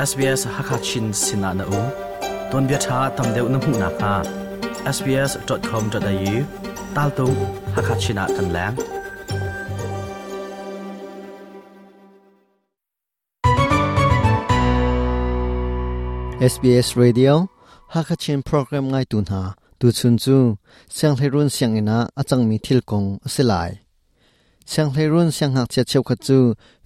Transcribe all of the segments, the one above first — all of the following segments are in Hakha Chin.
SBS Hakha Chin sinah na um. Tuanbia ṭha tam deuh na hmuh nakhnga sbs.com.au taltung Hakha Chin ah kan leng. SBS Radio Hakha Chin program ngaitu hna tuchun cu sianghleirun sianginn ah a cangmi thil kong a si lai. Sianghleirun siangngakchia cheukhat cu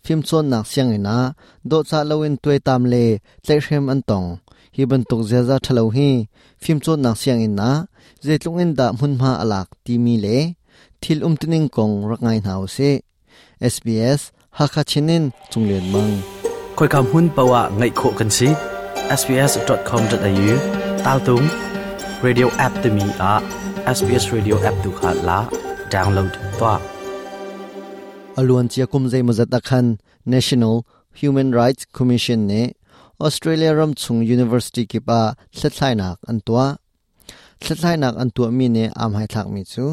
fimcawnnak sianginn ah dawhcah loin tuaitam le tlaihhrem an tong. Hi bantuk ziaza ṭhalo hi fimcawnnak sianginn ah zeitluk in dah hmunhma a lak timi le thil umtuning kong rak ngai hna usih. SBS Hakha Chin in Cunglian Mang. Khoika hmun paoh ah ngaih khawh kan si. sbs.com.au taltung radio app timi ah SBS Radio app tu kha la download tuah. Aluan cia kum zeimawzat akhan National Human Rights Commission nih Australia ram chung university kip ah hlathlainak an tuah. Hlathlainak an tuahmi nih aa hmaithlakmi cu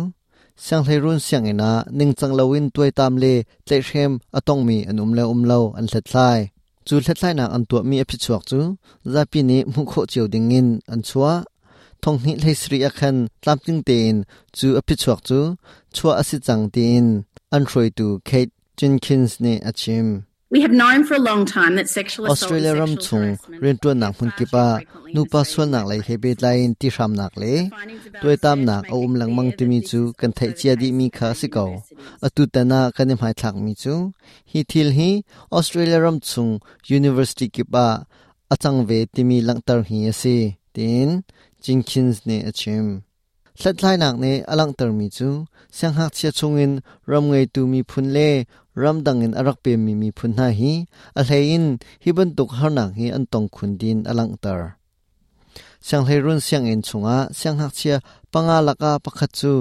sianghleirun sianginn ah ningcang loin tuaitam le tlaihhrem a tongmi an um le um lo an hlathlai. Cu hlathlainak an tuahmi a phichuak cu zapi nih hmuh khawh cio dingin an chuah. Thonghnih hlei sarih ah khan tlamtling tein cu a phichuak cu chuah a si cang tiin an hruaitu Kate Jenkins nih a chim. We have known for a long time that sexual assault Australia and ram sexual chung harassment rianṭuannak hmun kip ah nupa sualnak lei he pehtlai in tihramnak le tuaitamnak a um lengmang timi cu kan theih cia dihmi kha a si ko. Atu tan ah kan i hmaithlakmi cu hi thil hi Australia ram chung university kip ah a cang ve timi langhter hi a si, tiin Jenkins nih a chim. Hlathlainak nih a langhtermi cu siangngakchia chungin ram ngeitu miphun le ramdang in a rak pemmi miphun hna hi a hleiin hi bantuk harnak hi an tong khun din a langhter. Sianghleirun sianginn chungah siangngakchia panga lakah pakhat cu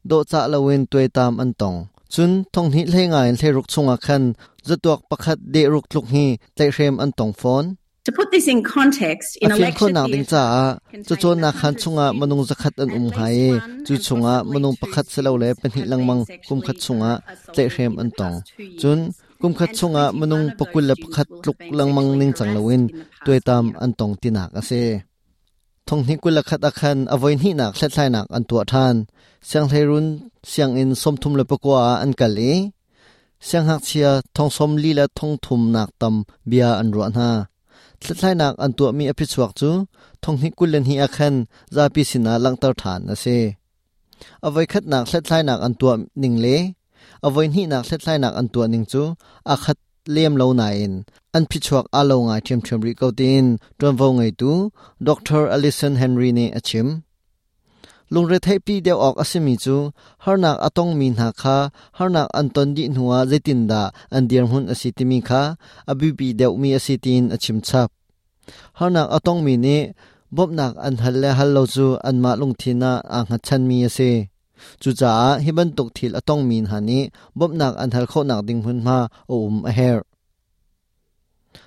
dawhcah loin tuaitam an tong. Cun thonghnih hlei nga in hleiruk chungah khan zatuak pakhat dehruk tluk hi tlaihhrem an tong fawn. To put this in context, in A a fim lecture khawhnak ding theatre caah containing cacawnnak khaan 100 chungah minung students, zakhat an at um least hnga i one cu and chungah possibly minung two pakhat silole students pahnih have lengmang been kumkhat sexually chungah assaulted tlaihhrem in an the tong. past 2 Cun years. kumkhat And chungah 21 minung of those 21 students will have tluk been lengmang sexually ningcang harassed loin in the past tuaitam year. an tong tinak a si. Thonghnih 21 ah khan a voihnihnak hlathlainak an tuah ṭhan. Sianghleirun sianginn 39 ah an kal i siangngakchia thong 40 le thong thumnak tam bia an ruah hna. Hlathlainak an tuahmi a phichuak cu thonghnih 22 ah khan zapi sinah langhter ṭhan a si. A voikhatnak hlathlainak an tuah ning le a voihnihnak hlathlainak an tuah ning cu aa khat lem lo nain an phichuak aa lo ngai ṭhiamṭhiam rih ko tiin ṭuanvo ngeitu Dr. Alison Henry nih a chim. Lungretheihpi deuh awk a simi cu harnak a tongmi hna kha harnak an ton dih hnuah zeitindah an dirhmun a si timi kha a biapi deuhmi a si tiin a chim chap. Harnak a tongmi nih bawmhnak an hal le hal lo cu anmah lungthin ah aa hngatchanmi a si. Cucaah hi bantuk thil a tongmi hna nih bawmhnak an hal khawhnak ding hmunhma a um a herh.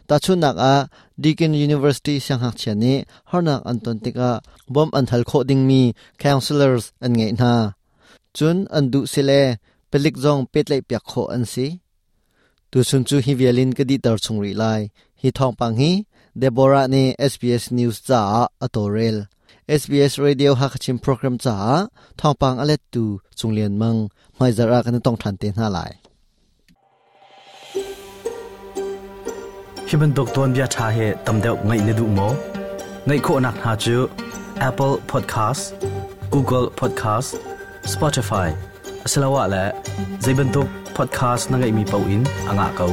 Tahchunhnak ah, Deakin University siangngakchia nih harnak an ton tikah bawmh an hal khawh dingmi counselors an ngeih hna. Cun an duh sile palik zong pehtlaihpiak khawh an si. Tuchun cu hi vial in ka dihter chung rih lai. Hi thawngpang hi Deborah nih SBS News caah a tawlrel. SBS Radio Hakachin program caah thawngpang a lettu Cung Lian Mang hmaizarh ah kan i tong ṭhan te hna lai. Hi bantuk tuanbia ṭha hi tam deuh ngaih na duh maw? Ngaih khawhnak hna cu Apple Podcast, Google Podcast, Spotify asiloah le zei bantuk podcast na ngeihmi paoh in a ngah ko.